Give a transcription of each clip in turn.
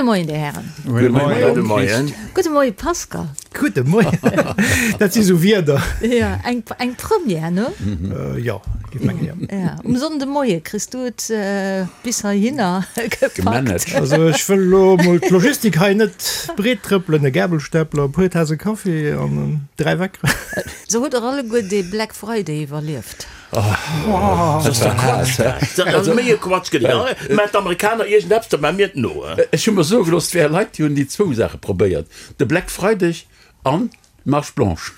Moien, Dir Hären. Gudde Moien. Gudde Moien. Gudde Moie Pascal. Gudde Moien. Dat si sou Wierder. Jo, eng, eng Première, ne? Jo, géif mengen, jo. Ja, um Sonndemoie kriss du et bis heihinner gepackt. Gemanagt. Also ech wëll elo mol d'Logistik hei net breet trëppelen, e Gabelstapler, e puer Tase Kaffi an 3 Weckeren. Sou hutt der alleguer dee Black Friday iwwerlieft? Dat ass doch Quatsch dat. Dat ass méi e Quatsch gëtt et. Mä d'Amerikaner iergend eppes, dat maache mir et no. Ech hu mer soe gelooss, et wäre Leit, déi hunn déi zwou Saache probéiert, de Black Freideg an d'Marche Blanche.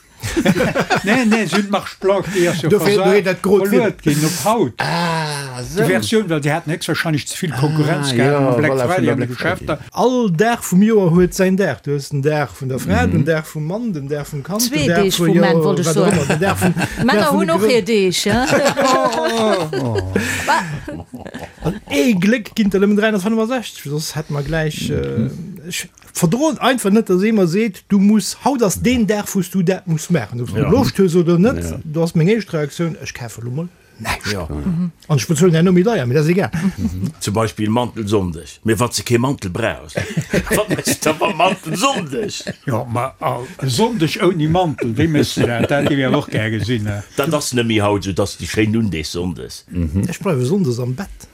Nee, nee, si hunn d'Marche Blanche, déi ass jo versat, verluet ginn op haut. Ah, esou. Déi Versioun, well déi haten héchstwahrscheinlech ze vill Konkurrenz gehat mam Black Friday an de Geschäfter. All Dag vum Joer huet säin Dag. Du hues den Dag vun der Fra, den Dag vum Mann, den Dag vum Kand, Zwee den Dag Deeg vu, vum jo, Mann, wollt ech wat och soen. ëmmer, den Dag vum, Dag Männer vun hunn de och hir Grënn. Deeg, hein? An ee Gléck ginn der nëmmen 365, soss hätte mer gläich, ech verdroen einfach net, dass ee mer seet, du muss, haut ass deen Dag, wou s du dat muss maachen, ob s du Loscht hues oder net. Do ass meng éischt Reaktioun, ech kafe lo mol näischt. An ech bezuelen herno méi deier, mee dat ass egal. Zum Beispill Mantelsonndeg. Mee wann s de kee Mantel brauchs, wat méchs de da mam Mantelsonndeg? Jo, ma e Sonndeg ouni Mantel, wéi méchs de dat? Dat géif ech awer och gär gesinn. Dat ass net méi haut esou, dass déi schéin Undeeg sonndes. Ech bleiwe sonndes am Bett.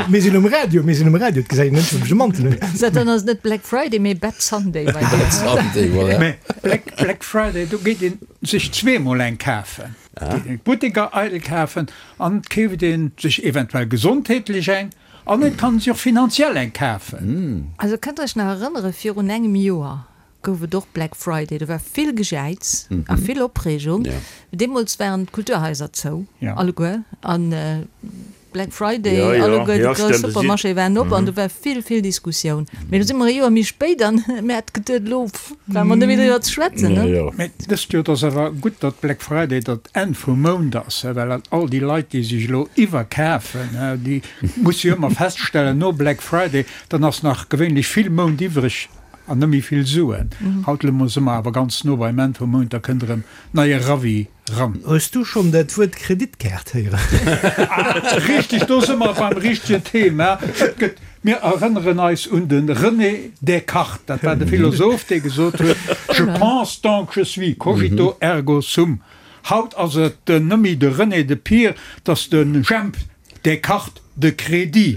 Mir sinn um Radio, mir sinn um Radio, et gesäit een net, wou ech e Mantel hunn. Sou, dann ass et net Black Friday, mee Bad Sunday bei dir. Bad Sunday, voilà. Mee Black, Black Friday, do geet ee sech zweemol eng kafen. Geet een d'Butteker eidel kafen an et keeft ee sech eventuell gesondheetlech eng an et kann ee sech och finanziell eng kafen. Also kënnt der iech nach erënnere virun engem Joer, gouf et och Black Friday. Do war vill Gejäiz a vill Opreegung. Deemools waren d'Kulturhaiser zou, alleguer. An Black Friday, alleguer déi grouss Supermarchéë waren op an do war vill, vill Diskussioun. Mee elo si mer e Joer méi spéit an mir hätte geduet, elo brauche mer net méi driwwer ze schwätzen, ne? Mee dëst Joer, et ass awer gutt, datt Black Friday dat Enn vum Mount ass, well all déi Leit, déi sech elo iwwerkafen, déi musse jo ëmmer feststellen, no Black Friday, dann ass nach gewéinlech vill Mount iwwreg. An net méi vill Suen. Haut elo si mer awer ganz no beim Enn vum Mount, da kënnt erëm neie Ravi ran. Hues du schonn dat Wuert Kreditkaart héieren? Ah, richteg, do si mer beim richtegen Thema. Et gëtt, mir erënneren eis un de René Descartes, dat war de Philosoph, dee gesot huet, Je pense donc je suis, cogito ergo sum. Haut ass et net méi de René, de Pir, 't ass de Jemp Descartes de crédit.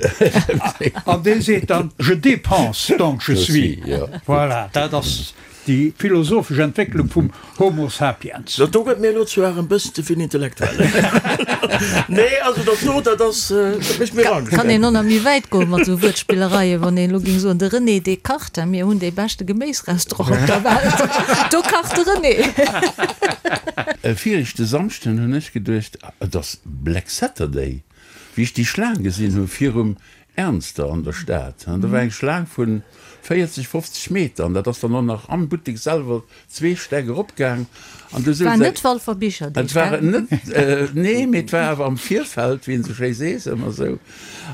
An dee seet dann, Je dépense, donc je suis. Voilà, dat ass déi philosophesch Entwécklung vum Homo sapiens. Dat do gëtt mir elo zwar en bëssen ze vill intellektuell. Nee, also dat do, dat ass, dat mécht mir Angscht. Kann een och nach méi wäit goen mat esou Wuertspillereien, wann een elo géing soen, de René Descartes, mir hunn dee beschte Geméisrestaurant op der Welt, do kacht de René. Viregte Samschden hunn ech geduecht, Et ass Black Saturday, wéi ech déi Schlaang gesinn hu virum Ernster an der Stad. Do war eng Schlaang vu 40, 50 Meter an dat ass dann och nach am Buttek selwer zwee Stäck eropgaang. An du War souz net Walfer Bicherdeeg, Et war gell? net, nee, mee et war awer am Virfeld, wéi een esou schéi sees, ëmmer esou.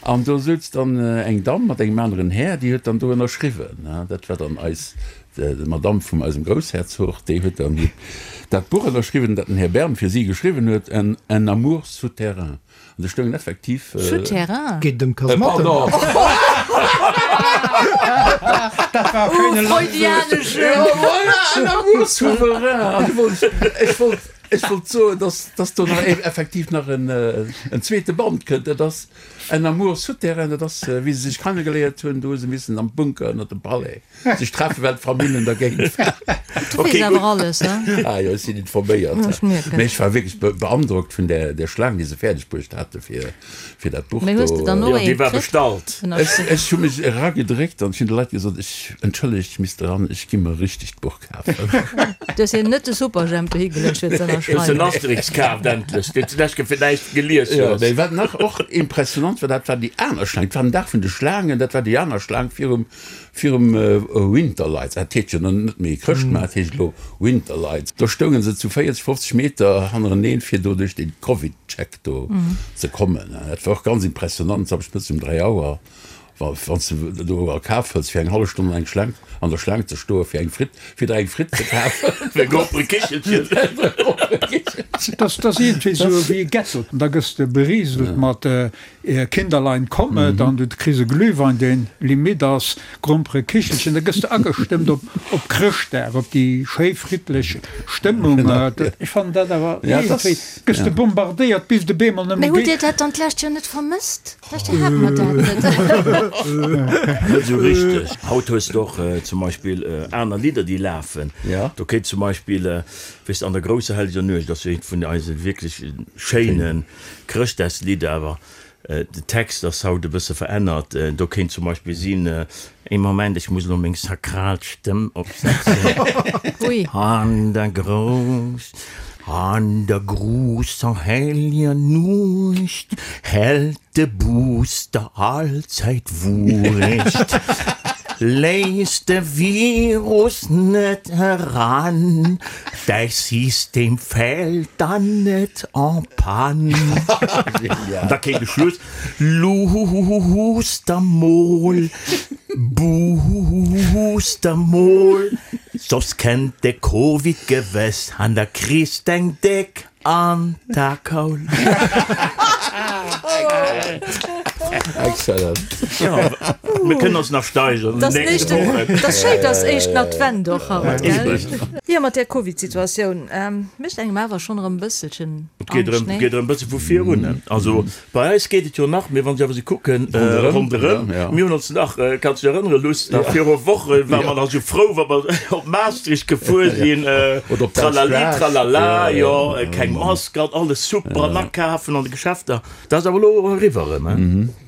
An do souz dann eng Damm mat engem aneren Här, déi huet dann do ënnerschriwwen. Dat war dann eis D'Madame vum eisem Groussherzog, déi huet dann dat Buch ënnerschriwwen, dat den Här Bern fir si geschriwwen huet, Un, un amour souterrain. An do stoungen effektiv. Souterrain? Geet et ëm Kasematten? Pardon! Dat war e schéine Oh, freudianesche! Ja, voilà, un amour souverain! An du wollt, ech wollt, ech wollt soen, dass, dass do nach effektiv nach en, en zweete Band kënnt. Dat ass Un amour souterrain, dat ass, wéi se sech kennegeléiert hunn, do hu se missen am Bunker ënner dem Palais sech treffen, well d'Famillen dergéint waren. Du weess awer alles, he? Ah jo, ech sinn informéiert. Ech mierken. Mee ech war wierklech beandrockt vun där, där Schlaang, déi se fäerdeg bruecht hate fir, fir dat Buch Mee hues de do. dann och Jo, déi eent war kritt? bestallt. Ech, ech hu mech eragedréckt an ech hunn de Leit gesot, ech, entschëllegt, ech misst eran, ech gi mer e richtegt Buch kafen. Du hues hinnen net de Superjhemp dohi geluecht fir ze Hues den ënnerschreiwen? Asterix kaaft endlech, deen s du d'lescht Kéier fir näischt gelies Jo, hues. mee wat nach och impressionant war, dat war déi aner Schlaang. Et war den Dag vun de Schlaangen, dat war déi aner Schlaang virum, Virum Winterlights, dat heescht jo net méi Chrëschtmaart, heescht elo Winterlights, do stounge se zu 40, 50 Meter hannereneen, fir do duerch dee Covid-Check do ze kommen. Dat war och ganz impressionant, samschdes mëttes um 3 Auer. Wa wann s de do a Kaf hëls, fir eng hallef Stonn an eng Schlaang, an der Schlaang ze stoe fir eng Fritt, fir der eng Fritt ze kafen. Fir e Gromperekichelchen. Dat ass iergendwéi esou wéi e Ghetto. Da gëss de berieselt mat Kinderlein kommet an du kriss e Glühwein, deen limit ass, Gromperekichelchen. Da gëss de agestëmmt op op Chrëschtdag, op déi schéi friddlech Stëmmung. Ech fannen dat awer iergendwéi, gëss de bombardéiert bis de bemol net méi geet. Mee hutt Dir dat dann d'lescht Joer net vermësst? D'lescht Joer hate mer dat net. Net esou richteg. Haut hues de och zum Beispill aner Lidder, déi lafen. Do kéint zum Beispill, weess de, An der grousser helleger Nuecht ass jo eent vun eise wierklech schéine Chrëschtdagslidder, awer de Text ass haut e bësse verännert. Do kéint zum Beispill sinn, Ee Moment, ech muss elo meng sakral Stëmm opsetzen. An der grouss, an der grousser helleger Nuecht hält de Booster allzäit Wuecht. Léiss de Virus net eran, däi System fält dann net en panne. An da kéint de Schluss. Luusst der mol, buusst der mol, soss kennt de Covid gewëss an da kriss d'eng déck an d'Akaul. Excellent. Jo, mir kënnen ons nach steigern an den nächste Wochen. Dat ass schéin, dass éischten Advent och haut, gell? Jo, mat där Covid-Situatioun mécht engem awer schonn erëm e bësselchen. Et geet erëm, geet erëm e bësse vu vir un. Also bei eis geet et jo nach, mee wann ech awer esou kucken ronderëm, mir hunn ons nach, kanns dech erënnere Luss, nach viru Woche ware mer nach esou frou, wa mer op Maastricht gefuer sinn, tralali tralala, jo, keng Mask an alles super an akafen an de Geschäfter. Dat ass awer elo eriwwer erëm, he?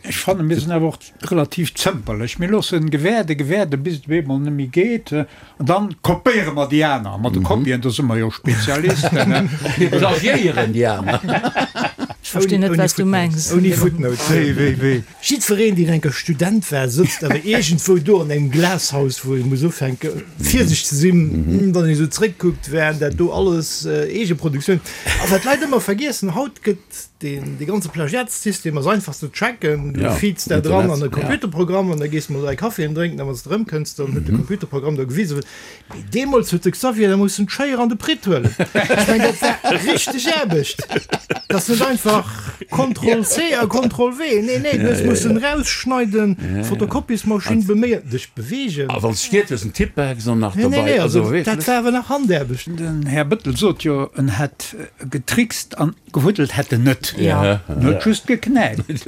Ech fannen, mir sinn awer och relativ zëmperlech. Mir loossen gewäerde, gewäerde bis et op eemol net méi geet an dann kopéiere mer déi aner. Mat de Kopien, do si mer jo Spezialisten. Mir plagiéieren déi aner. Ech verstinn net, wat s du mengs. Ouni Footnote. Wéi, wéi, wéi? Jiddwereen, deen enker Student war, sëtzt awer iergendwou do an engem Glashaus, wou ee muss ufänke virsichteg ze sinn, wann een esou zréckkuckt, waren dat do alles Eegeproduktioun. A wat d'Leit ëmmer vergiessen, haut gëtt Deen, dee ganze Plagiatssystem ass einfach ze tracken. Du feeds dat eran an e Computerprogramm an da gees de mol dräi Caféen drénken a wann s de erëmkënns, dann huet de Computerprogramm der gewisen. Mee deemools huet de Xavier da mussen d'Schéier an de Pritt huelen. Ech mengen, dat war richteg Aarbecht. Dat ass net einfach Contrôle C a Contrôle V. Nee, nee, du hues mussen erausschneiden, d'Fotokopiesmaschinn beméien, dech beweegen. A wann s de stiert hues, en Tippex an nach Nee, nee, dobei. nee, also dat war awer nach Handaarbecht. Den Här Bettel sot jo, en hätt getrickst an Gewuddelt hätt en net. En huet just geknäipt. En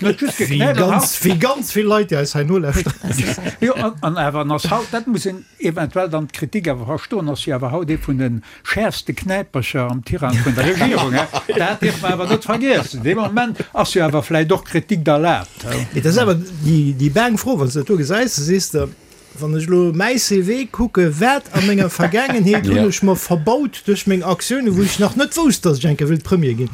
huet just geknäipt. Wéi ganz vill Leit, déi eis hei nolauschteren. Jo, an awer en ass haut, dat muss een eventuell dann d'Kritik awer verstoen, ass jo awer haut ee vun de schäerfste Knäipercher am Tirang vun der Regierung. Dat dierf mer awer net vergiessen. Dee Moment ass jo awer vläicht och Kritik erlaabt. Mee dat ass awer déi baang Fro, wann s de dat do gesäis, da sees de, Wann ech elo mäi CV kucke, wat a menger Vergaangenheet hunn ech mer verbaut duerch meng Aktiounen, wou ech nach net wousst, datt ech eng Kéier wéilt Premier ginn.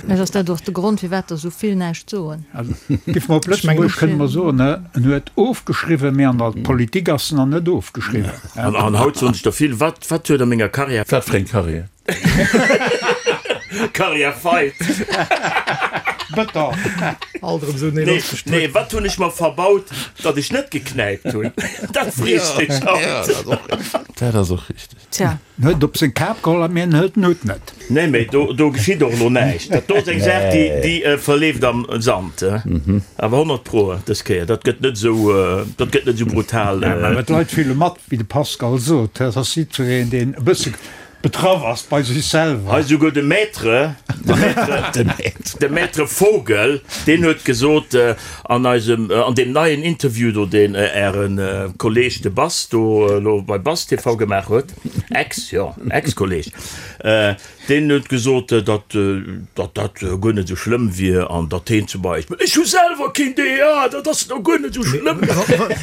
Vläicht ass dat och de Grond, firwat der esou vill näischt soen. Also, géife mer op Lëtzebuergesch kënne mer soen, en huet ofgeschriwwen, mee an der Politik ass en nach net ofgeschriwwen. An haut soen sech der vill, Wat, wat huet a menger Karriär. Wat fir eng Karriär? Karriär feit. Bëtter. Alt erëm esou nee, nee, wat hunn ech mer verbaut, datt ech net geknäipt hunn? Dat frees dech haut. Dat ass och richteg. Tja. En huet et op seng Kap geholl a mir en hëlt den Hutt net. Nee, mee do, do geschitt och elo näischt. Dat do ass eng Saach, déi, déi verleeft am Sand. Awer 100 pro dës Kéier, dat gëtt net esou, dat gëtt net esou brutal. Ja, mä d'Leit fille mat, wéi de Pascal sot. Dat ass jiddwereen, deen e bësse Betraff ass bei sech selwer. Hei souguer de Maître, de Maître, de Maître Vogel, deen huet gesot an eisem, an deem neien Interview do, deen Äre Kolleg de Bass do elo bei Bass TV gemaach huet, ex, jo, Ex-Kolleg, deen huet gesot, datt, datt dat guer net esou schlëmm wier an datt heen zum Beispill, ech hu selwer keen DEA, dat ass elo guer net esou schlëmm.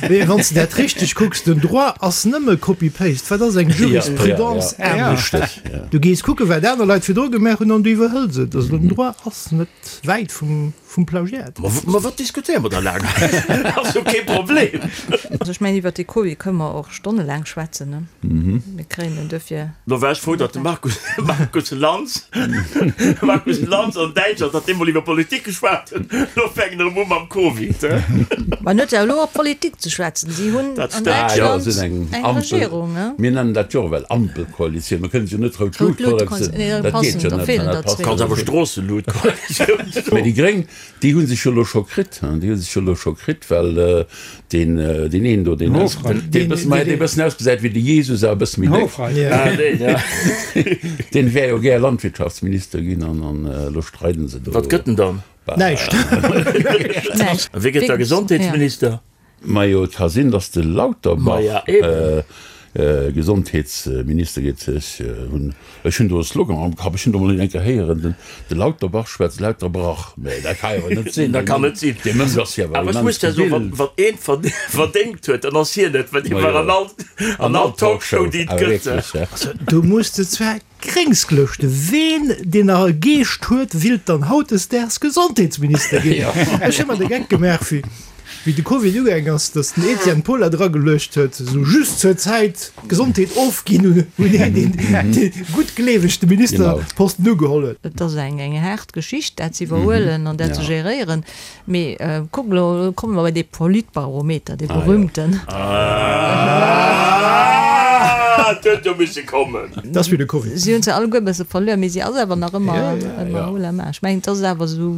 Mee wann s de dat richteg kucks, den Droit ass nëmme Copy-Paste. Wat ass eng Jurisprudence anescht? Näischt. Du gees kucken, wat aner Leit virdru gemaach hunn an du iwwerhëls et. Also den Droit ass net wäit vum Plagiat. Ma wat diskutéiere mer da laang hei? Ass jo kee Problem. Also ech mengen, iwwert dee Covid kënne mer och stonnelaang schwätzen, ne? Mir kréien en duerfir. Lo war ech frou, datt de Markus, Markus Lanz, Markus Lanz an Däitschland, datt dee mol iwwer Politik geschwat huet. Lo fänken erëm u mam Covid, he? Ma en huet jo elo op Politik ze schwätzen. Si hunn Dat an stemmt. Jo, Däitschland se sinn eng eng Ampel, Regierung, ne? mir nennen dat jo och ewell Ampelkoalitioun. Mir kënnen se jo net Rout Rout Lut Lut, Koalitioun, nee, da dat geet passen, jo da net, feelen dat der passt zwee. Kanns awer Stroosselut Koalitioun soen. Mä déi Gréng, déi hu sech jo elo scho kritt, hein, déi hu sech jo elo scho kritt, well Deen deen een do, deen deen bëssen, ma dee bëssen ausgesäit wéi de Jesus, awer e bësse méi déck. Ah, deen, ja. Deen wär jo gär Landwirtschaftsminister ginn an an elo streiden se do. Wat gëtt en dann? Näischt. Näischt. A wie gëtt da Gesondheetsminister? Majo, et ka sinn, datt de Lauterbach Maja, eben. Gesondheetsminister geet. Ech hunn ech hunn do e Slogan am Kapp, ech hunn do mol een eng Kéier héieren, den de Lauterbach schwätzt lauter Brach. Mä dat ka jo net sinn. Dat kann net sinn. Dee Mënsch ass jo awer Awer ech immens muss der soen, gebilt. wann wann een verdéngt huet, dann ass hien et, well dee war an all an all Talkshow, déi et Awer gëtt. wierklech, ja. Also do muss de zwar Gréngsglëschte, Ween deen nach e Geescht huet, willt dann hautdesdaags Gesondheetsminister ginn? Ech hu mer de Geck gemaach, wéi wéi de Covid ugaang ass, datt den Etienne Paul dat erageluecht huet, esou just zur Zäit d'Gesondheet ofginn un een, deen dee guttgleeweg de Ministerposten ugeholl huet. Et ass eng eng haart Geschicht, dat ze iwwerhuelen an dat ze geréieren. Mee kuck elo, elo komme mer bei dee Politbarometer, dee berühmten. Ah, et huet jo misse kommen. Dat ass wéi de Covid. Si hunn se alleguer e bësse verluer, mee si ass awer nach ëmmer ëmmer haut la main. Ech mengen, et ass awer esou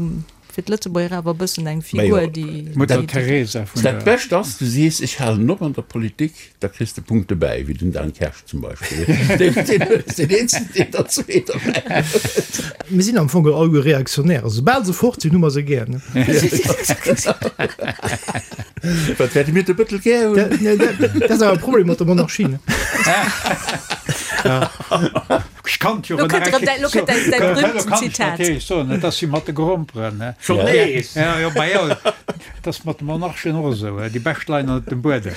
fir d'Lëtzebuerger awer e bëssen eng Figur, déi. Mutter Teresa vun Dat der. Bescht ass, du sees, ech halen op an der Politik, da kriss de Punkte bäi, wéi den Dan Kersch zum Beispill. Deen ass deen eenzegen, deen der zwee derbäi huet. Mir sinn am Fong alleguer Reaktionär. Also soubal se fort sinn, hu mer se gär. Wat wäerte mir de Bëttel gär hunn? Dat ass awer e Problem mat der Monarchie, ne? Ech kann jo Lo kënnt erëm däi, lo kënnt däi, däi berühmten Zitat. Soen, et ass wéi mat de Gromperen. Schonn nees? Ja, jo, ma jo, et ass mat de Monarchen och esou, déi bescht leien ënnert dem Buedem.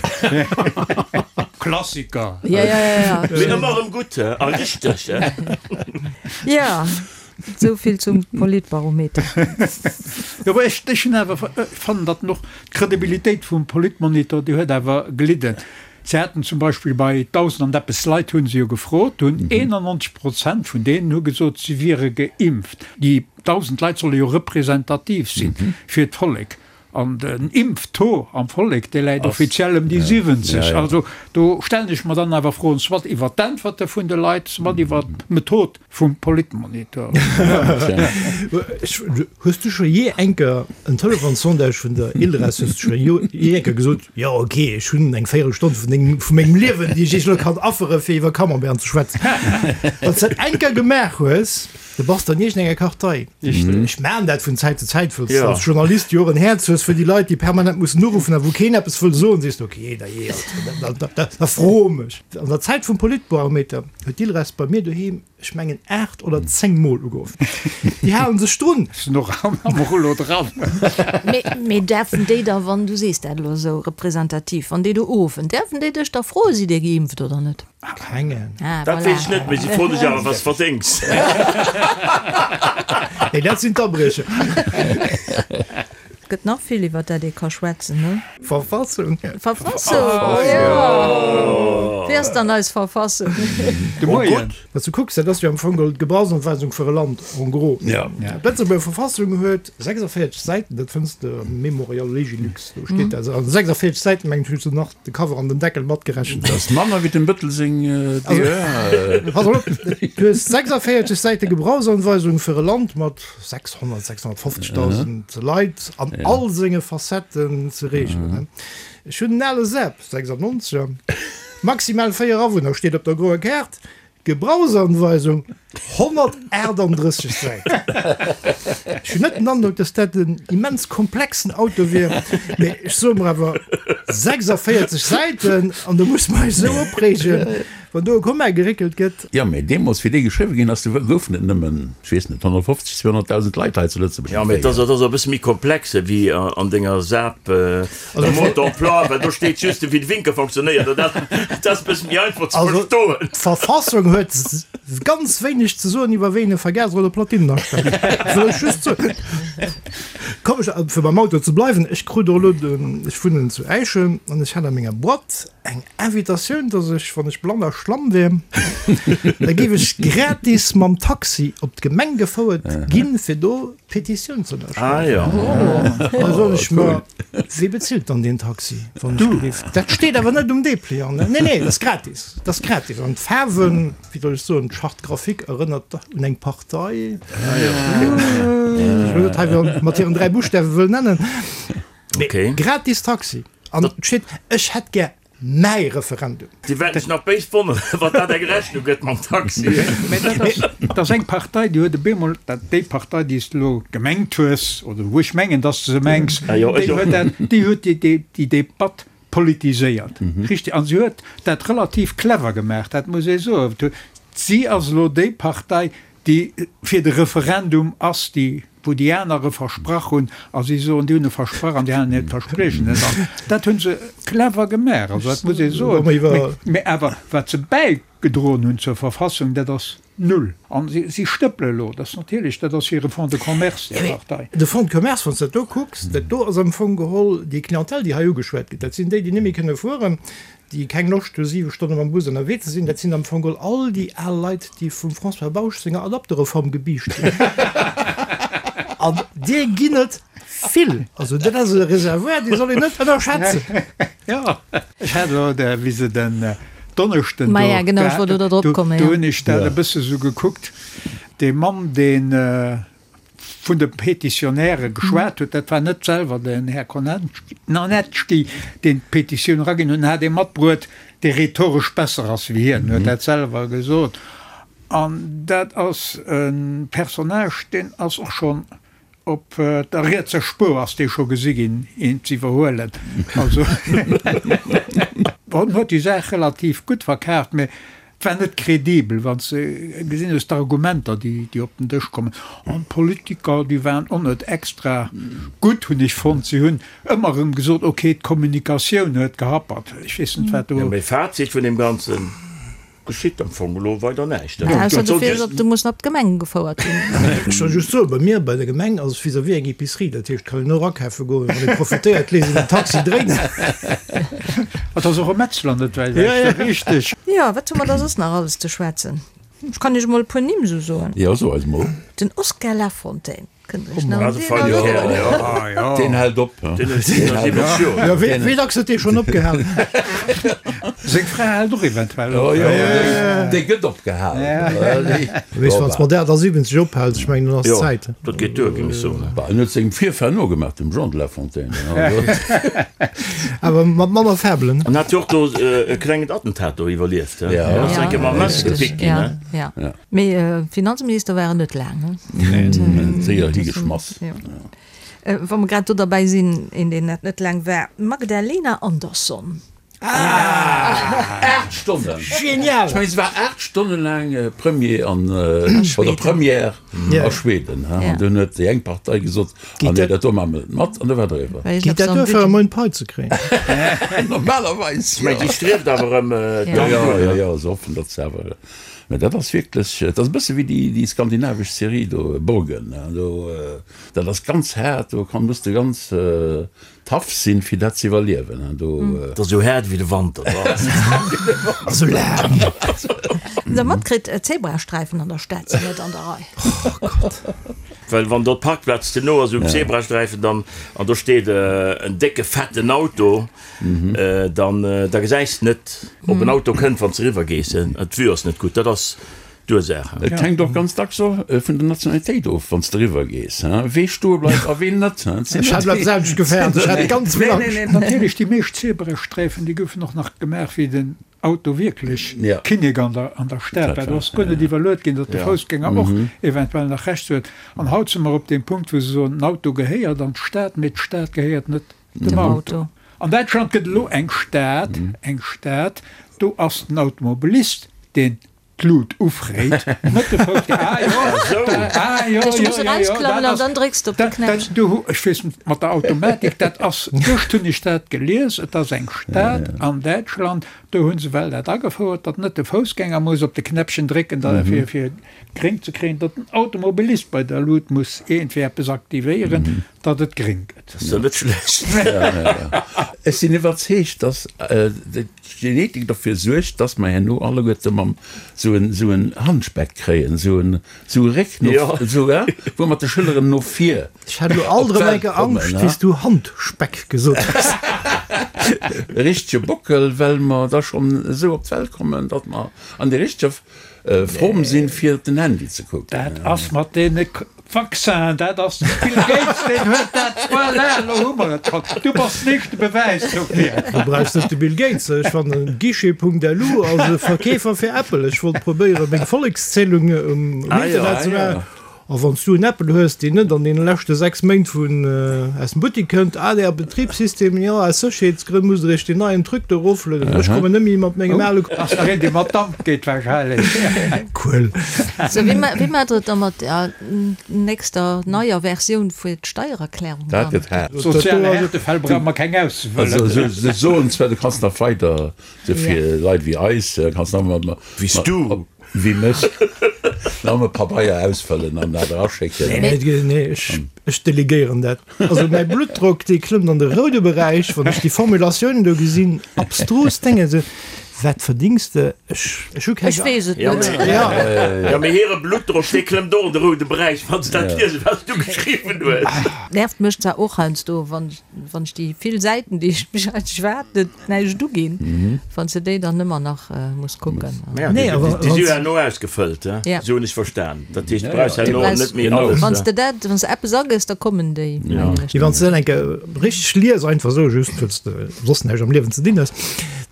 Klassiker. Ja, ja, ja, ja. Mee ëmmer erëm gutt a richteg. Ja, esou vill zum Politbarometer. Jo, mä ech, ech hunn awer, fannen, datt en och d'Credibilitéit vum Politmonitor, déi huet awer gelidden. Se haten zum Beispill bei 1.000 an eppes Leit hu se jo gefrot, hunn 91 Prozent vun deenen hu gesot, si wiere geimpft. Déi 1.000 Leit solle jo representativ si fir d'Vollek. An den Impftaux am Vollek, dee läit offiziell ëm déi 70. Also do stellen ech mer dann awer Froen, soit iwwert d'Äntwerte vun de Leit, soit iwwert d'Method vum Politmonitor. Hues du scho jee enker en Telefonssondage vun der Ilres, hues du scho jee enker gesot, jo ok, ech hunn eng Véierelstonn vun dengem, vu mengem Liewen, déi ech iech elo kann affere fir iwwer Camembert ze schwätzen. Wann s dat enker gemaach hues, da bass de an iergendenger Kartei. Ech maachen dat vun Zäit zu Zäit, wëlls de als Journalist jo och en Häerz hues fir déi Leit, déi permanent mussen uruffen a wou keen eppes wëll soen, sees de, ok, da jee, also, da fro mech. An der Zäit vum Politbarometer huet d'Ilres bei mir doheem, ech mengen 8 oder 10 mol ugeruff. Déi halen sech drun. Sinn och am Rullo dran. Mee däerfen déi da, wann, du sees dat elo esou representativ, wann déi do uruffen, däerfen déi dech da froen, sidd Dir geimpft oder net? Kengen. Ah, Dat voilà. weess ech net, mee si froen dech awer, wat s de verdéngs. Nee, dat sinn d'Abriecher. Et gëtt nach vill iwwer dat ee ka schwätzen, ne? Verfassung. Verfassung, jo! Wéi ass dann eis Verfassung? De Moien. Wann s du kucks, dat ass jo am Fong geholl d'Gebrauchsanweisung fir e Land, en gros. D'Lëtzebuerger Verfassung huet 46 Säiten, dat fënns de am Memorial Legilux, do steet dat. Also 46 Säiten, mengen ech, hues du nach de Cover an den Deckel matgerechent. Dat ass manner wéi dem Bëttel seng DER. Pass op, du hues 46 Säite Gebrauchsanweisung fir e Land mat 600, 650.000 Leit an all senge Facetten ze reegelen. Ech hunn en ale Seb, 96er, maximal 4 Awunner steet op der groer Kaart, Gebrauchsanweisung, 138 Säiten. Ech hunn net den Androck, dass dat en immens komplexen Auto wier, mee ech soe mer awer 46 Säiten an do muss mer eis esou opreegen. Wann do e Komma geréckelt gëtt. Jo, mee deemools, wéi dee geschriwwe ginn ass, do goufen et nëmmen, ech weess net, 150, 200.000 Leit hei zu Lëtzebuerg. Jo, mee et ass e bësse méi komplex wéi an denger SAP Mode d'emploi, well do steet just, wéi de Winkel fonctionnéiert. An dat ass e bësse méi einfach ze verstoen. Also, d'Verfassung huet. Ganz wéineg ze soen iwwer wéi een e Vergaser oder Platinen astellt. Wëll ech just soen. Komm ech, fir beim Auto ze bleiwen, ech krut och elo den, ech wunnen zu Äischen an ech hat a menger Boîte eng Invitatioun, dass ech, wann ech blann a schlamm wier, da géif ech gratis mam Taxi op d'Gemeng gefouert ginn, fir do d'Petitioun ze ënnerschreiwen. Da soen ech mer, Wie bezilt dann deen Taxi, wann ech géif? Dat steet awer net um Depliant, ne? Nee, nee, dat ass gratis, dat ass gratis. An d'Faarwen, wéi soll ech soen, d'Charte graphique erënnert un eng Partei, déi ech elo net hei mat hiren 3 Buschtawe wëll nennen. Mee gratis Taxi an et steet, ech hätt gär mäi Referendum. Déi wäerten sech nach béis wonneren, wann dat eng Rechnung gëtt mam Taxi. Mee dat ass, dat ass eng Partei, déi huet op eemol, dat déi Partei, déi s de elo gemengt hues, oder wou ech mengen, dass de se mengs, déi huet dat, déi huet déi, déi Debatt politiséiert. Richtig. An si huet dat relativ clever gemaach, dat muss ee soen. Si ass elo déi Partei, déi fir de Referendum ass, déi, wou déi aner e versprach hunn, a si soen, déi hunn e versprach an déi halen hiert Verspriechen net an. Dat hu se clever gemaach, also dat muss ee soen. Mä awer wat se bäigedroen hunn zur Verfassung, dat ass null. A si stëppele elo, dat ass natierlech, dat ass hire Fonds de commerce, déi Partei. De Fonds de commerce, wann s de dat do kucks, dat do ass am Fong geholl déi Clientèle, déi hei ugeschwat gëtt, dat sinn déi, déi net méi kënne fueren, déi keng Loscht hu 7 Stonne mam Bus ënnerwee ze sinn, dat sinn am Fong geholl all déi al Leit, déi vum François Bausch senger Adaptereform gebiischt ginn. An deer ginn et vill. Also dat ass e Reservoir, dee soll een net ënnerschätzen. Jo, ech hat elo, wéi se den Donneschden do, Maja, genau, ech wollt elo drop kommen, jo. Do hunn ech dat e bësse sou gekuckt, dee Mann, deen vun de Petitionäre geschwat huet, dat war net selwer den Här Konanecki, deen d'Petitioun eraginn huet, en hat ee matbruet, dee rhetoresch besser ass wéi hien, huet dat selwer gesot. An dat ass e Personnage, deen ass och schonn op der rietser Spuer ass dee scho gesi ginn, een ze iwwerhuelen. Also, en huet déi Saach relativ gutt verkaaft, mä Et war net kredibel, wann s de gesinn hues, d'Argumenter, déi op den Dësch kommen. An d'Politiker, déi waren och net extra gutt, hunn ech fonnt. Si hunn ëmmer erëm gesot, okay, d'Kommunikatioun huet gehappert. Ech weess net, wat do. Jo, mee Fazit vun deem Ganzen, geschitt am Fong elo weider näischt. Ausser du fiers op, du muss nach op d'Gemeng gefouert ginn. Ech soll just soen, bei mir bei der Gemeng ass et vis-à-vis eng Epicerie, dat heescht, kann een och akafe goen, wann ee profitéiert, léisst een den Taxi dréinen. Et ass och e Metzler net wäit ewech, richteg. Jo, wat hu mer da soss nach alles ze schwätzen? Ech kann iech emol e puer Nimm esou soen. Jo, so eis mol. Den Oskar Lafontaine, kënnt der iech nach un deen erënneren? Deen hält op. Jo, wéi dacks huet dee schonn opgehalen? Seng Fra hält och eventuell op. Jo, déi gëtt opgehalen. Weess, wann s mat 78 ophäls, ech mengen, dann ass Zäit. Dat geet duer, géing ech soen. Bah, en huet sengem Virfahr nogemaach, dem Jean de La Fontaine. Awer mat manner Färbelen. An hat jo och do e klengen Attentat do iwwerlieft, he? Ja. Ass eng Kéier mam Messer gepickt ginn, he? Ja, ja. Mee Finanzminister war en net laang, he? Nee, nee, séier higeschmass. Ja. Wa mer grad do derbäi sinn, een, deen dat net laang war, d'Magdalena Andersson. 8 Stonnen! Genial! Ech mengen, se war 8 Stonne laang Premier an, oder Première a Schweden. An dunn huet déi eng Partei gesot, ah nee, dat do maache mer net mat, an da war et eriwwer. Geet dat duer, fir e Moin Pai ze kréien? Normalerweis, jo. Mä déi strieft awer erëm d'Amt un. Jo, jo, jo, se hoffen, datt se awer. Mä dat ass wierklech, dat ass e bësse wéi déi skandinavesch Serie do, Borgen. Do, dat ass ganz haart, do kann, muss de ganz Tough sinn fir dat ze iwwerliewen hein do. Et ass esou haart wéi de Wanter dra. Esou laang. Hutt der matkritt, d'Zebrasträifen an der Stad sinn net an der Rei. Oh Gott. Well wann do d'Parkplaz ze no ass um Zebrasträifen dann an do steet en décke fetten Auto, dann da gesäis de net ob en Auto kënnt wann s de eriwwer gees. D'Vue ass net gutt. Dat ass d'Ursaach. Et hänkt och ganz dacks och vun der Nationalitéit of, wann s de eriwwer gees, wee stoe bleift a ween net. Ech hat dat selwecht gefäert, ech hat ganz vill Angscht. Nee, nee, natierlech, déi meescht Zebrasträifen, déi goufen och nach gemaach, wéi den Auto wierklech Kinnek an der Stad war. Do ass guer net iwwerluet ginn, datt de Foussgänger och eventuell nach Rechts huet. An haut si mer op deem Punkt, wou se soen, den Auto gehéiert an d'Stad, mee d'Stad gehéiert net dem Auto. An Däitschland gëtt elo eng Stad, eng Stad, do ass den Automobilist deen. D'Lut ufréit, net de Foussgänger. Ah jo, ah jo, jo, jo, jo, dat ass, dann drécks de op de Knäppchen. Du hu, ech weess net, mat der Automatik, dat ass, gëscht hunn ech dat gelies, et ass eng Stad an Däitschland, do hu se well dat agefouert, datt net de Foussgänger muss op de Knäppchen drécken, da fir, fir gréng ze kréien, datt den Automobilist bei der Lut muss iergendwéi eppes aktivéieren, datt et gréng gëtt. Dat ass jo net schlecht. Ech sinn iwwerzeegt, datt d'Genetik derfir suergt, dass mer herno alleguerte mam sou en sou en Handspeck kréien, sou en sou e Réck no sou he, wou mer de Schëlleren no vir Ech hat elo alt erëm eng Kéier Angscht, wéi s du Handspeck gesot hues. E richtege Bockel, well mer da schonn esou op d'Welt kommen, datt mer an der richteger Form sinn, fir op den Handy ze kucken. Dat ass mat deene Vaccinen, dat ass de Bill Gates, deen huet dat, voilà, elo hu mer et schonn. Du bass den éischte Bewäis dofir. Du brauchs net de Bill Gates, ech fannen Guichet.lu ass e Verkeefer fir Apple. Ech wollt probéieren, meng Vollekszählung um Internet ze maachen. A wann s du en Apple hues, deen net an deene leschte 6 Méint vun aus dem Buttik kënnt, ADR Betribssystem, jo, aus Sécherheetsgrënn musst der iech deen neien Truc do eroflueden. Ech kommen net méi mat mengem ale. Ass nach een, dee mat Damp geet wahrscheinlech. Cool. Sou, wéi wéi maacht der et da mat der nächster neier Versioun fir d'Steiererklärung Dat dann? gëtt haart. Soziale Härtefäll brauche mer keng auszehuelen. Also se soen zwar, du kanns nach weider, sou fir Leit wéi eis, kanns nach mat. Wéi s du. Wéi mech. Nëmme Pabeier ausfëllen an dat eraschécken. Nee, nee, nee, ech, ech delegéieren dat. Also mäi Bluttdrock, dee klëmmt an de roude Beräich, wann ech déi Formulatiounen do gesinn, abstrus Dénge, esou, wat verdings de? Ech, ech hu keng. Ech weess et net. Ja. Ja, mee hire Bluttdrock, dee klëmmt och an de roude Beräich, wann se dat liesen, wat s du geschriwwen hues. Nervt mech zwar och heiansdo, wann, wann ech déi vill Säiten, déi ech mech eigentlech waarden, näischt uginn, wann s de déi dann ëmmer nach muss kucken. Nee, awer déi si jo herno ausgefëllt, esou hunn ech verstan. Dat heescht, du brauchs herno net méi alles. Wann s de dat, wann s de eppes agëss, da kommen déi, mengen ech. Wann s de dat eng Kéier richteg lies, einfach esou, just well s de soss näischt am Liewen ze dinn hues,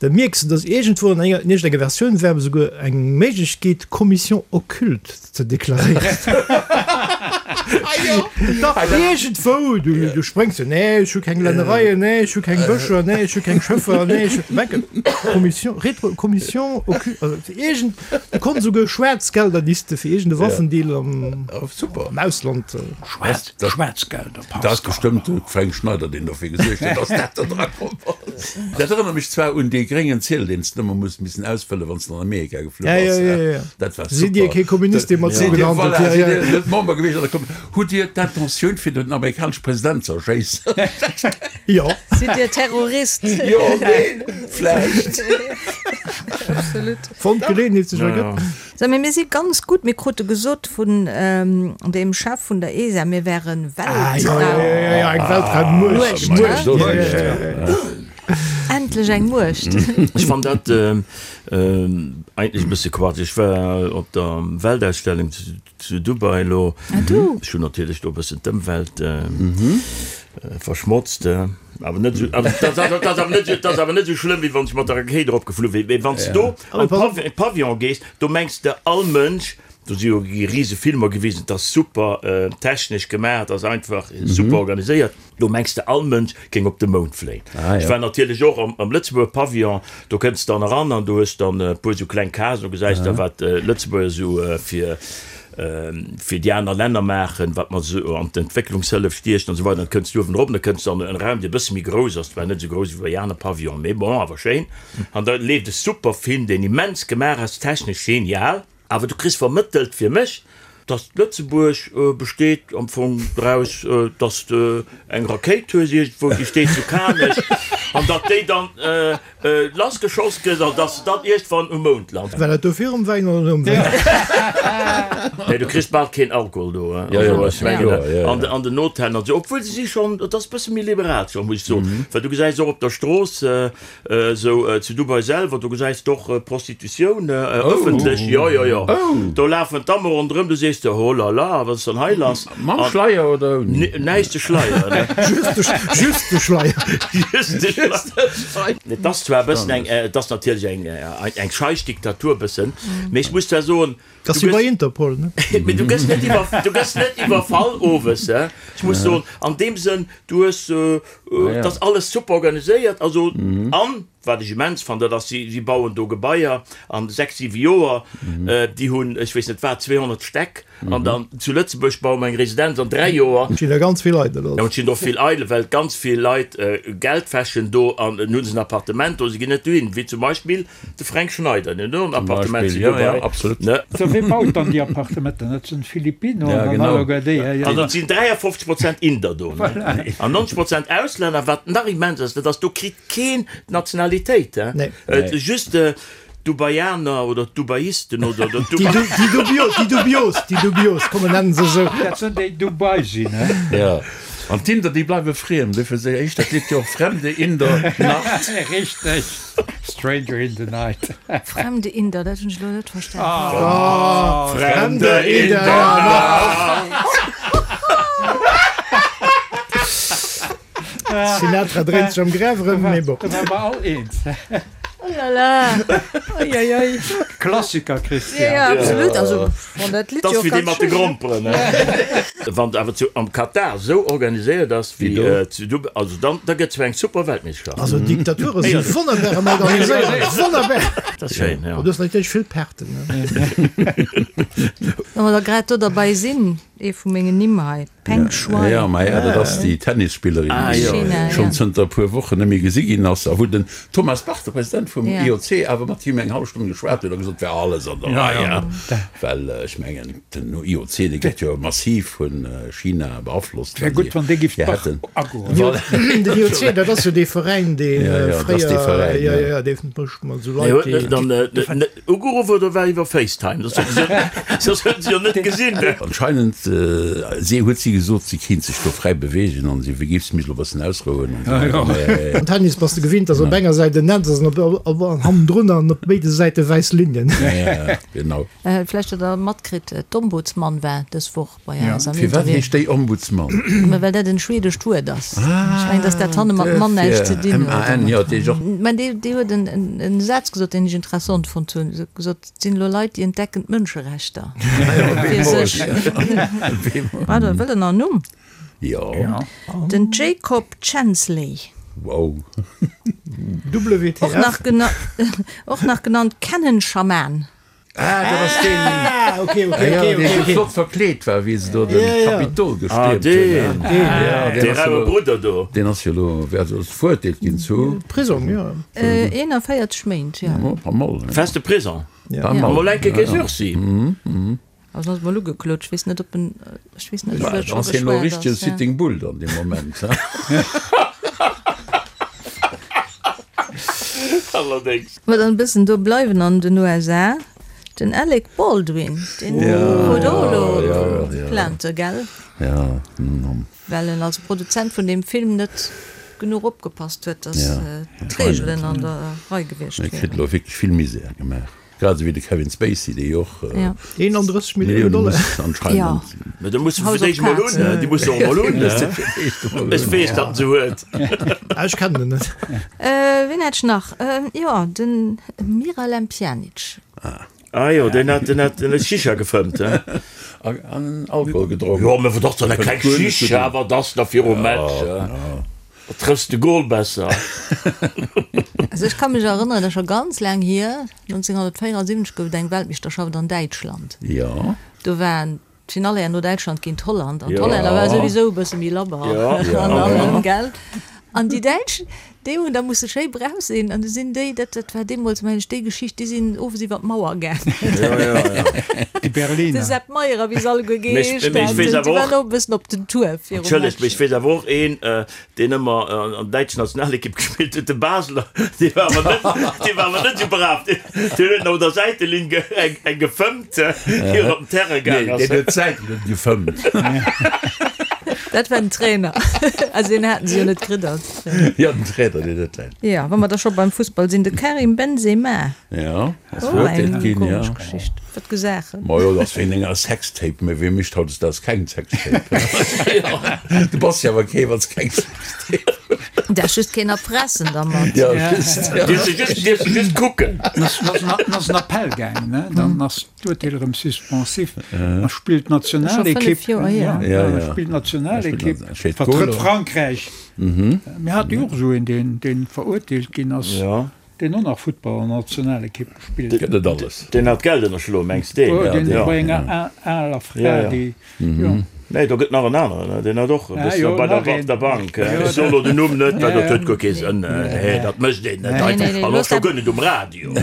da mierks de, dass iergendwou an enger, in iergendenger Versioun war esouguer eng Méiglechkeet, Commission occulte ze deklaréieren. Dach, iergendwou, du, du spréngs jo, nee, ech hu keng Lännereien, nee, ech hu keng Bëscher, nee, ech hu keng Schëffer, nee, ech hu, Mengen, Commission, Retro, Commission occu-, also iergend, du konns esouguer Schwaarzgelder, déi s de fir iergende Waffendeal am, Super. am Ausland. Schwaarz, Schwaarzgelder, Dat ass Pascal. bestëmmt de Fränk Schneider, deen dofir gesuergt huet, dass dat do dra komm ass. Dat erënnert mech zwar un dee gréngen Ziedel, deen s de ëmmer muss missen ausfëllen, wann s de an Amerika geflu Ja, ja, bass. ja, ja. Dat war Sidd Dir super. kee Kommunist, dee mat Sidd Dir, gehandelt? voilà, Ja, sidd ja. Dir net Member gewiescht an der Kom Hutt Dir d'Intentioun, fir den amerikanesche President ze erschéissen? Jo. Sidd Dir Terrorist? Jo, neen, vläicht. Absolut. Wann d'Geleeënheet sech ergëtt. So, mee mir si ganz gutt. Mir krute gesot vun deem Chef vun der ESA, mir wären Ah, jo, jo, jo, jo, eng Weltraummuecht. Muecht, Muecht, ja, ja, ja, ja. Endlech eng Muecht. Ech fann dat eigentlech e bësse Quatsch. Ech war op der Weltausstellung zu Dubai elo. Ah du? Ech hunn natierlech do e bëssen d'Ëmwelt verschmotzt. Awer net esou, also dat ass, dat ass awer net esou, dat ass awer net esou schlëmm, wéi wann ech mat der Rakéit eropgeflu wier. Mee wann s de do an de Pavillon gees, do mengs de all Mënsch, do si jo rise Filmer gewisen, et ass super technesch gemaach, et ass einfach super organiséiert. Do mengs de all Mënsch géing op de Mound fléien. Ech war natierlech och am Lëtzebuerger Pavillon, do kënns de dann eran an do hues dann e puer esou kleng Casen, do gesäis de wat Lëtzebuerger esou fir fir déi aner Länner maachen, wat mer esou an d'Entwécklungshëllef stiechen an esou weider. Dann kënns du uewen erop an da kënns de an en Raum, dee e bësse méi grouss ass, zwar net esou grouss wéi bei aner Pavillonen, mee bon, awer schéin. An da leeft e super Film, deen immens gemaach ass, technesch genial. Awer du kriss vermëttelt fir mech, dass Lëtzebuerg besteet am Fong draus, dass de eng Rakéit hues iergendwou, déi steet zu Kanech, an datt déi dann lassgeschoss gëtt an dass se dann iergendwann um Mound lant. War dat do virum Wäin oder nom Wäin? Nee, du kriss bal keen Alkohol do, also ech mengen an den Hotellen an esou, obwuel se si schonn, et ass e bësse méi liberal scho, muss ech soen, well du gesäis och op der Strooss, Esou zu Dubai selwer, do gesäis de och Prostitutioun ëffentlech. Jo, jo, jo. Do lafen d'Damme ronderëm, du sees der, oh la la, wat ass dann hei lass? Mam Schleier oder ouni? Näischt de Schleier, ne? Just de Schleier. Just de Schleier. Et ass zwar e bëssen eng, et ass natierlech eng, eng scheich Diktatur bëssen, mee ech muss zwar soen, Dat ass wéi bei Interpol, ne? Mee du gëss net iwwer, du gëss net iwwerfall owes, he? Ech muss soen, an deem Sënn, du hues, et ass alles super organiséiert, also an. Wat ech immens fannen, dat ass, si bauen do Gebaier an 6, 7 Joer, déi hunn, ech weess net wat, 200 Stäck, an dann zu Lëtzebuerg baue mer eng Residenz an 3 Joer. Et stinn der ganz vill eidel. Jo, et stinn do vill eidel, well ganz vill Leit Geld wäschen do an hunn se en Appartement do, se ginn net dohin, wéi zum Beispill de Fränk Schneider, deen huet och en Appartement zu Dubai. Sou, wee baut dann déi Appartementen? Dat sinn d'Philippinoen an alleguer déi. Also et sinn 53 Prozent Inder do an 90 Prozent Auslänner. Wat nach immens ass, dat ass, do kritt keen d'Nationalitéit, just d'Dubaianer oder d'Dubaisten oder déi Dubios, déi Dubios, komm mer nennen se esou. Dat sinn déi Dubai sinn, he? Jo, an d'Inder déi bleiwe friem, dofir se éischt dat Lidd jo och Fremde in der Nacht. Richteg, Stranger in the Night. Fremde Inder, dat hunn ech elo net verstanen. Fremde in der Nacht. Sinatra dréint sech am Graf erëm, mee bon. Da ware mer all eens. Oh la la, oi oi oi. Klassiker, Christian. Ja, ja, absolut. Also, wann dat Lidd jo ganz wéi dee mat de Gromperen, ne? Wann et awer zu am Katar esou organiséiert ass wéi zu Dubai, also dann, da gëtt zwar eng super Weltmeeschterschaft. Also Diktature si wonnerbar ëm organiséiert, wonnerbar. Dat ass schéin, jo. Du hues natierlech vill Perten, ne? Wa mer da grad do derbei sinn, ee vu mengen Nimm hei. Peng Shuai. Ja, ma ja, dat ass déi Tennisspillerin, déi schonn zënter e puer Wochen net méi gesi ginn ass a wou den Thomas Bach, de President vum IOC, awer mat him eng hallef Stonn geschwat huet a gesot, wär alles an der Rei. Well ech mengen, den IOC, dee gëtt jo massiv vu China beaflosst. Wär gutt, wann dee giff d'Bach agoen. Den IOC, dat ass jo dee Veräin, dee fréier, jo, jo, dee mécht mat esou Leit, déi. Ugeruff oder war iwwer Facetime? Soss huet se jo net gesinn. Anscheinend si huet si gesot, si kéint sech do fräi beweegen an si géif sech elo e bëssen ausrouen an esou weider. Am Tennis bass de gewinnt, dass op enger Säit en Netz ass an op hannendrun an op béide Säite wäiss Linien. Ja, genau. Vläicht hutt der matkritt, d'Ombudsman war dës Woch bei eis am Firwat Interview. heescht déi Ombudsman? Ma well dat en schwedescht Wuert ass. Ech mengen, datt dat hanne mat Mann näischt ze dinn huet. M-A-N, jo, dat heescht och. Mä déi, déi huet en, en, en Saz gesot, deen ech interessant fonnt hunn. Se huet gesot, et sinn elo Leit, déi entdecken d'Mënscherechter fir sech. Pardon, wëllt Der nach en Numm? Jo. Den Jacob Chansley. Wow. WTF? Och nach gena, och nach genannt Canon-Schaman. Ah, dat ass deen, Ah, okay, okay, ah, ja, okay, deen okay, sou okay. flott verkleet war, wéi se do den Ja, ja. Kapitol Ah, gestiermt hunn. deen, Ja, dee deen ass jo raue elo, Brudder do. deen ass jo elo, wär also verurteelt ginn zu. Prisong, ja. 41 Méint, ja. Oh, pas mol, ne? Feste Prisong. Ja. Pas mol. Mol enke kee Sursis. Also ass mol ugeklot, ech weess net, ob en, ech weess net, ob Bah, et scho ass hien elo geschwat richtege ass, ja. Sitting Bull dann dee Moment, he? Allerdéngs. Mä dann e bëssen do bleiwen an den USA, den Alec Baldwin, deen krut och elo Plainte, gell? Well en als Produzent vun deem Film net genuch opgepasst huet, datt d'Reegelen an der Rei gewiescht E kritt wieren. elo wierklech vill Misär gemaach. Grad esou wéi de Kevin Spacey, dee jo och 31 Millioune Dollar. muss anscheinend. Mä da muss e fir d'éischt mol hunn, déi muss e och mol hunn. Ech weess, datt en se huet. Ech kennen en net. Wien hat ech nach? Jo, de Miralem Pjanic. Ah jo, deen hat, deen hat Shisha gefëmmt, he? An Alkohol gedronk. Jo, mä wat ass dann eng kleng Shisha, wat ass da virum Match? Da trëffs de Goal besser. Also ech ka mech erënneren, dat ass scho ganz laang hier, 1974 gouf et eng Weltmeeschterschaft an Däitschland. Jo. Do war d'Finale herno Däitschland géint Holland an d'Hollänner ware souwisou e bësse méi labber an allem, gell? An déi Däitsch, déi hunn da musse schéi brav sinn an du sinn déi, dat dat war deemools mengen ech déi Geschicht, déi sinn owes iwwer d'Mauer gaangen. Déi Berliner. De Sepp Meyer a wéi se alleguer Mee ech geheescht weess haten, déi awer och. waren och e bëssen op den Tour virum Entschëllegt, mee Match. ech weess awer och een, deen ëmmer an der däitschen Nationalekipp gespillt huet, de Basler, dee war awer net, dee war awer net esou brav. Deen, deen huet nach un der Säitelinn ge, eng, eng gefëmmt, ier en op den Terrain gaang Nee, ass. deen huet d'Säitelinn gefëmmt. Dat war den Trainer. Also deen haten se jo net kritt als Trainer. Jo, den Trainer, deen huet dat. Jo, wa mer da scho beim Fussball sinn, de Karim Benzema. Jo, ass Oh, verurteelt eng ginn, jo. komesch Geschicht. Wat gesaachen. Majo, dat ass wéint enger Sextape, mee wee mécht hautdesdaags keng Sextape? Du bass jo awer kee, wann s keng Sextape hues. Däerf just keen erpressen dermat. Jo, just. Dierf se just, dierf se just kucken. Dann ass en Appell gaangen, ne? Dann ass d'Urteel erëm suspensif. Da spillt d'Nationalekipp, ja, da spillt d'Nationalekipp, vertrëtt Frankräich. Mir hate jo och esou een, deen, deen verurteelt ginn ass, deen och nach Futtball an der Nationalekipp gespillt huet. Gëtt et alles. Deen hat Geld ënnerschloen, mengs de? Jo, deen bei enger aler Fra, déi, jo. Nee, do gëtt nach en aneren, deen hat och e bëssen bei der, op der Bank. Ech soen elo den Numm net, well dat huet guer kee Sënn. Nee, dat mécht een net einfach. An och scho guer net um Radio.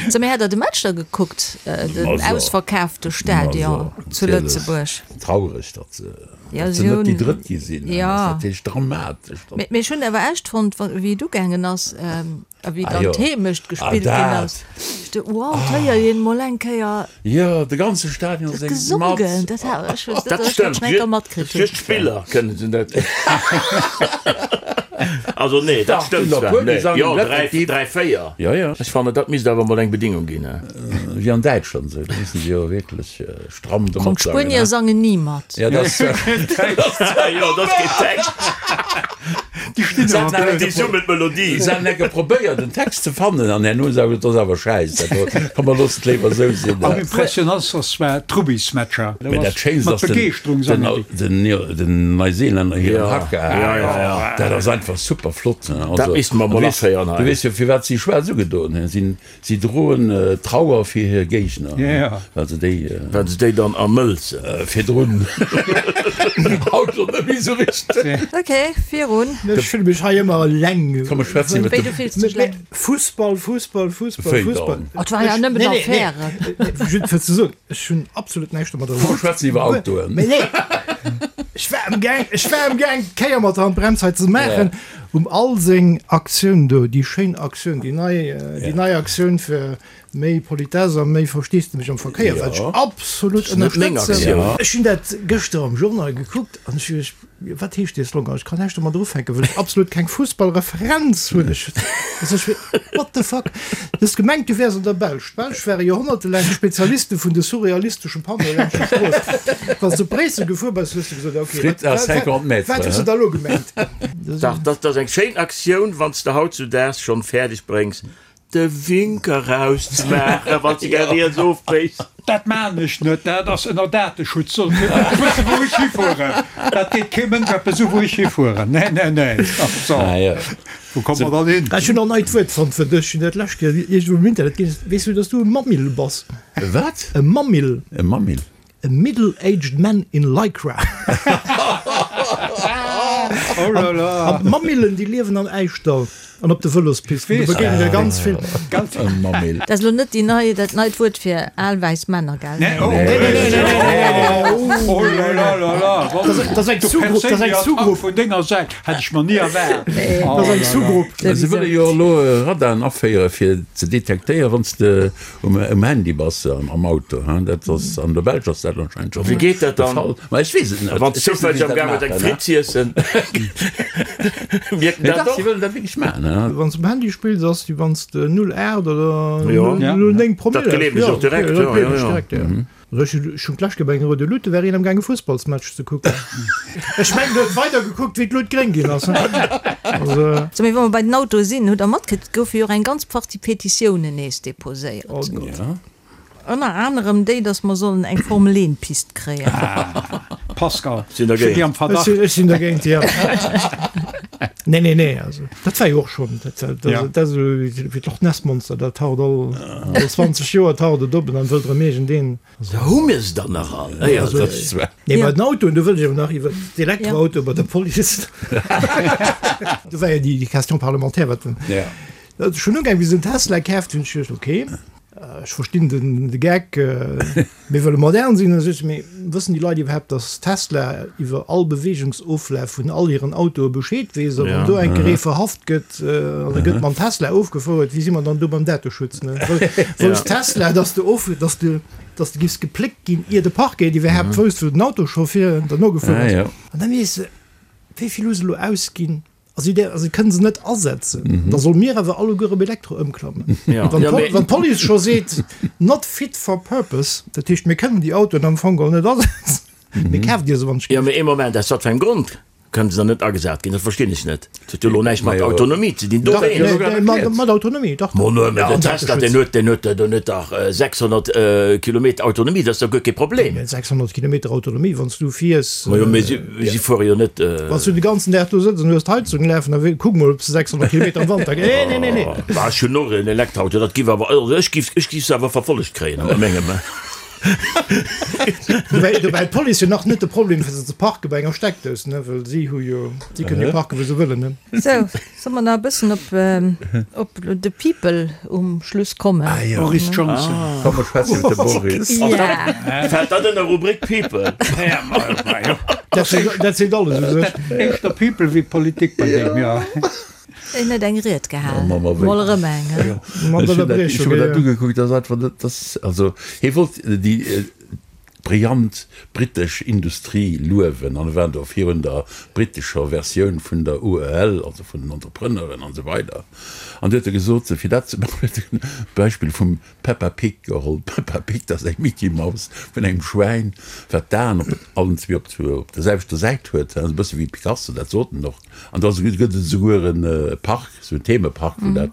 So, mee hat Der de Match da gekuckt, den ausverkaafte Stadion zu Lëtzebuerg? Traureg, datt se net déi Drëtt gi sinn. Dat ass natierlech dramatesch. Mee ech hunn awer echt fonnt, wéi et ugaangen ass, A wéi dann d'Heemecht gespillt ginn ass, ech du, wow, d'héiert een mol eng Kéier. Jo, de ganze Stadion séngt mat. Gesongen, dat hat ech, dat ech dat schon eng Kéier matkritt hunn. Just d'Spiller kënnen se net. Also nee, dat stëmmt zwar, nee, jo, 3, 3, 4. Jo, jo. Ech fannen, dat misst awer mol eng Bedingung ginn. Wéi an Däitschland esou, do mussen se jo wierklech stramm domat sangen. D'Spuenier sangen ni mat. Jo, dat ass Jo, dat ass keen Text. Déi stinn awer blöd. Déi summen d'Melodie. Se han enke probéiert en Text ze fannen an herno hu se gesot, dat ass awer schäiss, dat do, komm mer loossen et léiwer esou sinn. Am impressionantst war d'Rubbysmatcher. Mee dat Schéinst Mat ass den, Begeeschterung den, sangen déi. den, den Neuseelänner hiren Haka. Dat ass einfach super flott. Dat Also, misste mer du mol weess, aféieren du hei. weess jo firwat si schwaarz ugedoen hunn. Si Si droen Trauer fir hir Géigner, well se déi. Well se déi dann ermëlzen. Virdrun. Haut schonn net méi esou richteg. Ok, virun. Ech fille mech hei ëmmer eleng. Komm, ech schwätzen iwwer Wéi, du fills dech eleng? Fussball, Fussball, Fussball, Wéi Fussball. dann? Oh, et war jo nëmmen Affären. Nee, nee, nee, just fir ze soen, ech hunn absolut näischt domadder. Komm, mer schwätzen iwwer Autoen. Mee nee, ech war amgaang, ech war amgaang, d'Kéier mat der Handbrems hei ze maachen. Um all seng Aktioun do, déi schéin Aktioun, déi nei, déi nei Aktioun fir méi Politesse a méi Versteesdemech am Verkéier, wat ech absolut ënnerstëtzen. Ech hunn dat gëschter am Journal gekuckt an ech hu geduecht, wat heescht dee Slogan? Ech kann näischt domadder ufänken, well ech absolut keng Fussballreferenz hunn. Ech, also ech, what the fuck? Du hues gemengt, du wäers an der Belsch. D'Belsch ware joerhonnertelaang d'Spezialiste vun de surrealisteschen Panneaue laanscht der Strooss. Wann s du op Bréissel gefuer bass, hues du gesot, ok, Frites à 50 mètres, wat hues du da elo gemengt? Dach, dat ass eng schéin Aktioun, wann s de hautzudaags schonn fäerdeg bréngs, de Winker rauszemaachen, wann s de gär riets ofbéiss. Dat maan ech net, dat ass ënner Dateschutz, soll kee Mënsch wëssen wou ech hifueren, dat geet kee Mënsch eppes u wou ech hifueren, nee nee nee, so wou komme mer dann hin? Ech hunn en neit Wuert fonnt fir dech, hunn dat d'lescht Kéier iergendwou um Internet gelies. Weess du, dass du e Mammill bass? E wat? E Mammill. E Mammill? A middle-aged man in lycra. Oh là là! An d'Mammillen, déi liewen am Äischdall an op de Vëlospisten. Do begéinen der ganz vill. E Mammill. Dat ass elo net déi nei, dat neit Wuert fir al wäiss Männer, gell? Nee, oh, nee, nee, nee, nee, nee, oh là là là là! Dat ass eng Sous-Grupp, dat ass eng Sous-Grupp. Vun denger Säit hätt ech mer ni erwaart. Dat ass eng Sous-Grupp. Se wëlle jo elo Radaren aféiere fir ze detektéieren, wann s de Um Handy bass am Auto, hein? Dat ass an der Belsch ass dat anscheinend schon Wéi geet dat de dann? Fall. Ma ech weess et net. Wann s Ech weess net, wéi zoufälleg se am dat Gaang huet eng maachen, Fritt z'iessen, mierkt en Nee, dat dach, si och? wëllen dat wierklech maachen, hein? Wann s um Handy spills, ass wéi wann s de 0,8 oder Jo. 0,9 Promille Dat gleewen ech hues. och direkt, Jo, dat jo, gleewen jo, ech jo. direkt, jo. Also ech hunn ech hunn d'lescht Kéier bei enger roude Luut, do war een am gaang e Fussballsmatch ze kucken. Ech mengen, do huet weider gekuckt, wéi d'Luut gréng ginn ass. Also. So, mee wa mer bei den Autoe sinn, hutt Der matkritt, et goufe jo och eng ganz Partie Petitiounen nees deposéiert. Oh Gott. Ja. Ënner anerem déi, datt mer sollen eng Formel 1 Pist kréien. Pascal, Sinn ech hunn dergéint. déi am Ech Verdacht. sinn, ech sinn dergéint, jo. Nee, nee, nee, also dat war jo och schonn, dat, dat, Ja. dat ass esou wéi d'Loch Ness Monster, dat taucht all, all 20 Joer taucht et op en dann wëllt erëm iergendeen. Da hu mir se dann nach all. Nee, also, Dat ass zwar. nee, Ja. bei den Autoen, do wëll ech awer nach iwwer d'Elektroautoe bei der Police. Do war jo déi, déi Question parlementaire, wat den, Ja. dat ass schonn ugaang, wéi se den Tesla kaaft hunn, ech geduecht, okay, ech verstinn den, de Geck, Mir wëlle modern sinn, da seet se, mee wëssen déi Leit iwwerhaapt, datt Tesla iwwer all Beweegungsoflaf vun all hiren Autoe Bescheed weess? A wann do eng Kéier ee verhaft gëtt an e gëtt mam Tesla ofgefouert, wéi si mer dann do beim Dateschutz? Wousst Tesla, datt de of, datt de, datt de giffs gepléckt ginn, ier de Parquet iwwerhaapt wousst, wou den Auto scho vir derno gefuer ass? An da weess de, wéi vill hu se elo ausginn? Also déi also kënnen se net asetzen. Mm -hmm. Da soll mir awer alleguer op Elektro ëmklammen. Ja. Wann, ja, wann d'Police scho seet not fit for purpose, dat heescht mir kënnen déi Autoen am Fong geholl net asetzen. Mm -hmm. Mir kaaft Dir se wann Ja, mee ee Moment, aus wat fir engem Grond? Kënnen se dann net agesat ginn? Dat verstinn ech net. Dat huet jo elo näischt mat Autonomie ze dinn. Dach, mat Autonomie, dach. Mo no, mä den Tesla, deen huet, deen huet, deen huet dach 600 Kilometer Autonomie, dat ass dach guer kee Problem. 600 Kilometer Autonomie, wann s du fiers. Ma jo, mä si, si fuere jo net. Wann s du de ganzen Dag do sëtz an hues d'Heizung lafen, da kuck mol, ob s de 600 Kilometer am Wanter. Nee, nee, nee, nee. Bah, ech hunn och en Elektroauto, dat giff awer, also ech giff, ech giff se awer verfollegt kréien a mengem. Dobäi huet d'Police jo nach net de Problem fir se ze parke bei enger Steckdous, ne, well si hu jo, si kënnen jo parke wou se wëllen, ne. Sou, solle mer nach e bëssen op op de People um Schluss kommen? Ah jo. Boris Johnson. Komm mer schwätzen iwwer de Boris. Ja. Fält dat ënner Rubrik People? Dat seet alles u sech. Éischter People wéi Politik bei deem, jo. En huet eng Ried gehal, mol erëm eng. Ech hunn mer dat ugekuckt, dat ass einfach net, dat ass, also hie wollt déi brillant britesch Industrie luewen an e war do virun der britescher Versioun vun der UEL, also vun den Entrepreneuren an esou weider an du huet e gesot, fir dat ze maachen, huet en d'Beispill vum Peppa Pig geholl. D'Peppa Pig, dat ass eng Micky Maus vun engem Schwäin, wat d'Aen op allen zwee op der selwechter Säit huet, e bësse wéi Picasso, dat sot en och. An da gëtt et esouguer e Park, esou en Themepark, wou dat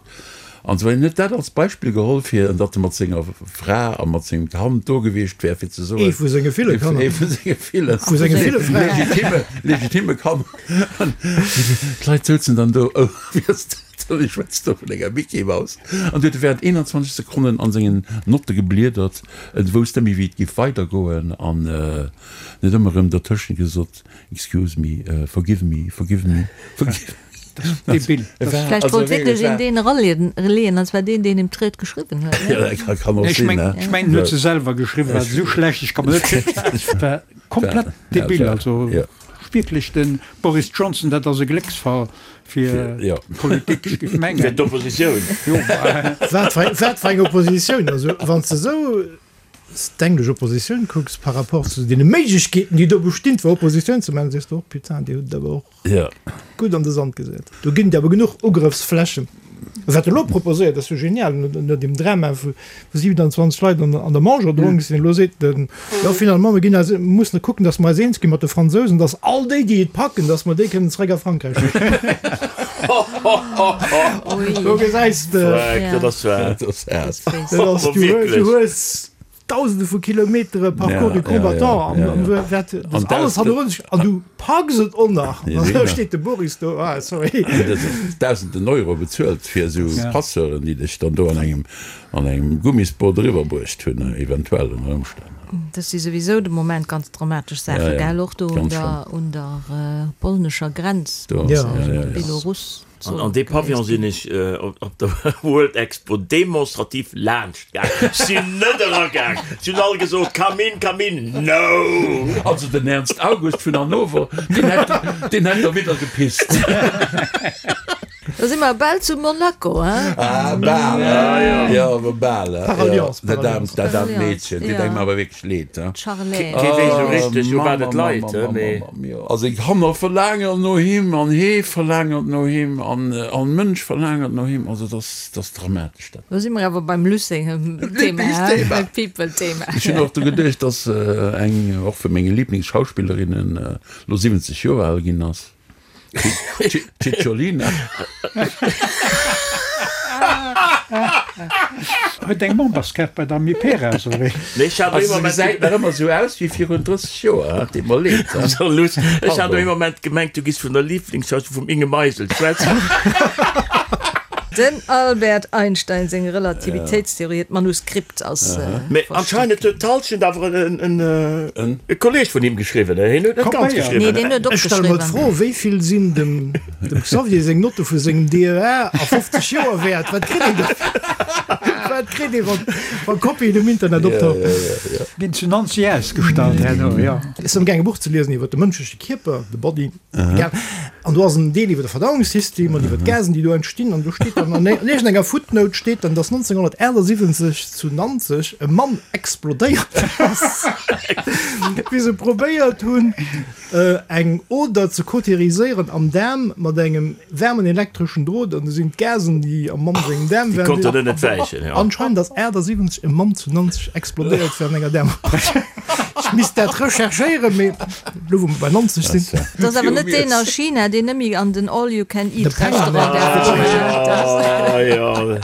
an esou. En huet dat als Beispill geholl, fir datt e mat senger Fra a mat sengem Kand do gewiescht wär, fir ze soen. Ee vu senge ville Kanner. Ee vu senge ville. Vu senge ville Fraen. Legitime, legitime Kanner. An d'Leit souzen dann do, oh, wéi ass dat? Ech schwätzt do vun enger Micky Maus. An du huet e während 21 Sekonnen an sengen Notte gebliedert. En wousst net méi wéi et giff weidergoen an en huet ëmmer erëm dertëschent gesot, Excuse me, forgive me, forgive me, forgive me. Debil. Vläicht wollt wierklech een deen eraleeën, an zwar deen, deen him d'Ried geschriwwen huet, ne? Ja, kann och sinn, ne? Ech mengen, en huet se selwer geschriwwen, well se esou schlecht, ech ka mer net virstellen, et war komplett debil, also wierklech de Boris Johnson, dat ass e Glécksfall. Fir d'Politik, ech géif mengen. Fir d'Oppositioun. Wat fir eng Oppositioun? Also, wann s de esou d'englesch Oppositioun kucks par rapport zu deene Méiglechkeeten, déi do bestinn, fir Oppositioun ze maachen, sees de och, Putain, déi hutt et awer och gutt an de Sand gesat. Do ginn et awer genuch Ugrëffsflächen. Wat elo proposéiert, ass jo genial, no deem Drama, wou 27 Leit an der Manche erdronk sinn, elo seet den, jo finalement, mir ginn eis, mussen kucken, datt mer eis eens gi mat de Fransousen, datt all déi, déi et packen, datt mer déi kënnen zeréck a Frankräich schécken. Do gesäis de, Dat ass dat ass, du hues Dausende vu Kilometere Parcours du combattant an an wat dat alles hannerun sech an du packs et och nach an da steet de Boris do, ah sorry. Dausenden Euro bezuelt fir esou Passeuren, déi dech dann do an engem an engem Gummisboot eriwwer bruecht hunn, eventuell ënner Ëmstänn. Dat si souwisou de Moment ganz dramatesch Saache, gell, och do un der un der polnescher Grenz mat Belarus. An dee Pavillon sinn ech op der World Expo demonstrativ laanscht gaang. Ech sinn net eragaang. Si hunn all gesot, Come in, come in. No! Also den Ernst August vun Hannover, deen hätt, deen hätt derwidder gepisst. Da si mer bal zu Monaco, hein? Ah, bal, hein? Jo, awer bal, hein? Par alliance, par alliance. Dat aarmt Meedchen, deet engem awer wierklech leed, hein? D'Charlène. Kee weess esou richteg, u wat et leit, hein, mee. Also eng Kanner verlaangert no him an hee verlaangert no him an all Mënsch verlaangert no him. Also dat ass, dat ass dramatesch dat. Lo si mer awer beim Luc sengem Thema, hein, beim People-Thema. Ech hunn och dru geduecht, dass eng och vu menge Liblingsschauspillerinnen elo 70 Joer al ginn ass. Cicciolina. Huet eng Memberskaart bei der Amiperas, oder wéi? Nee, ech hat e Moment. Se gesäit nach ëmmer esou aus wéi virun 30 Joer, et deet mer leed. Luss, ech hat e Moment gemengt, du giss vun der Lieblingsschauspillerin vum Inge Meisel schwätzen. Den Albert Einstein seng Relativitéitstheorie, d'Manuskript ass Mee anscheinend huet d'Halschent awer en Kolleg vun him geschriwwen, hien huet net ganz geschriwwen. Nee, deen huet Ech stelle mer opgeschriwwen. d'Fro, wéi vill sinn dem Xavier seng Notte vu sengem DEA a 50 Joer wäert? Wat kritt een dofir? Wat kritt ee wa Kopien um Internet optauchen? Ginn zu Nancy ausgestallt herno, jo. Ech sinn amgaang e Buch ze liesen iwwer de mënschleche Kierper, the body. Egal. An do ass en Deel iwwer de Verdauungssystem an iwwer d'Gasen, déi do entstinn. An do steet dann an iergendenger Footnote steet dann, dass 1978 zu Nanzeg e Mann explodéiert ass, wéi se probéiert hunn, eng Oder ze kauteriséieren am Daarm mat engem waarmen elektreschen Drot. An du sinn d'Gasen, déi am Mann sengem Daarm waren, déi konnten net wäichen. Anscheinend ass 78 e Mann zu Nanzeg explodéiert während enger Daarmoperatioun. Misst dat recherchéieren, mee elo wou mer bei 90 sinn. Dat ass awer net deen a China, deen nëmme an den All-You-Can-Eat-Restaurant däerf goen.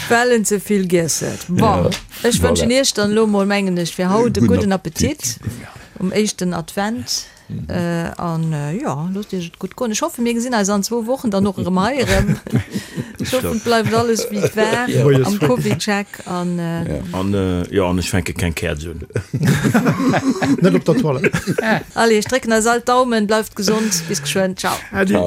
Well en ze vill giess huet. Bon, ech wënschen Iech dann elo mol, mengen ech, fir haut e gudden Appetit um éischten Advent. An jo, loosst Iech et gutt goen. Ech hoffen, mir gesinn eis an zwou Wochen dann och erëm hei erëm. Ech hoffen, et bleift alles wéi et war am CovidCheck. An jo, an ech fänke keng Käerz un. Net op der Toilette. Allez, ech drécken eis all d'Daumen. Bleift gesond. Bis geschwënn. Ciao. Äddi.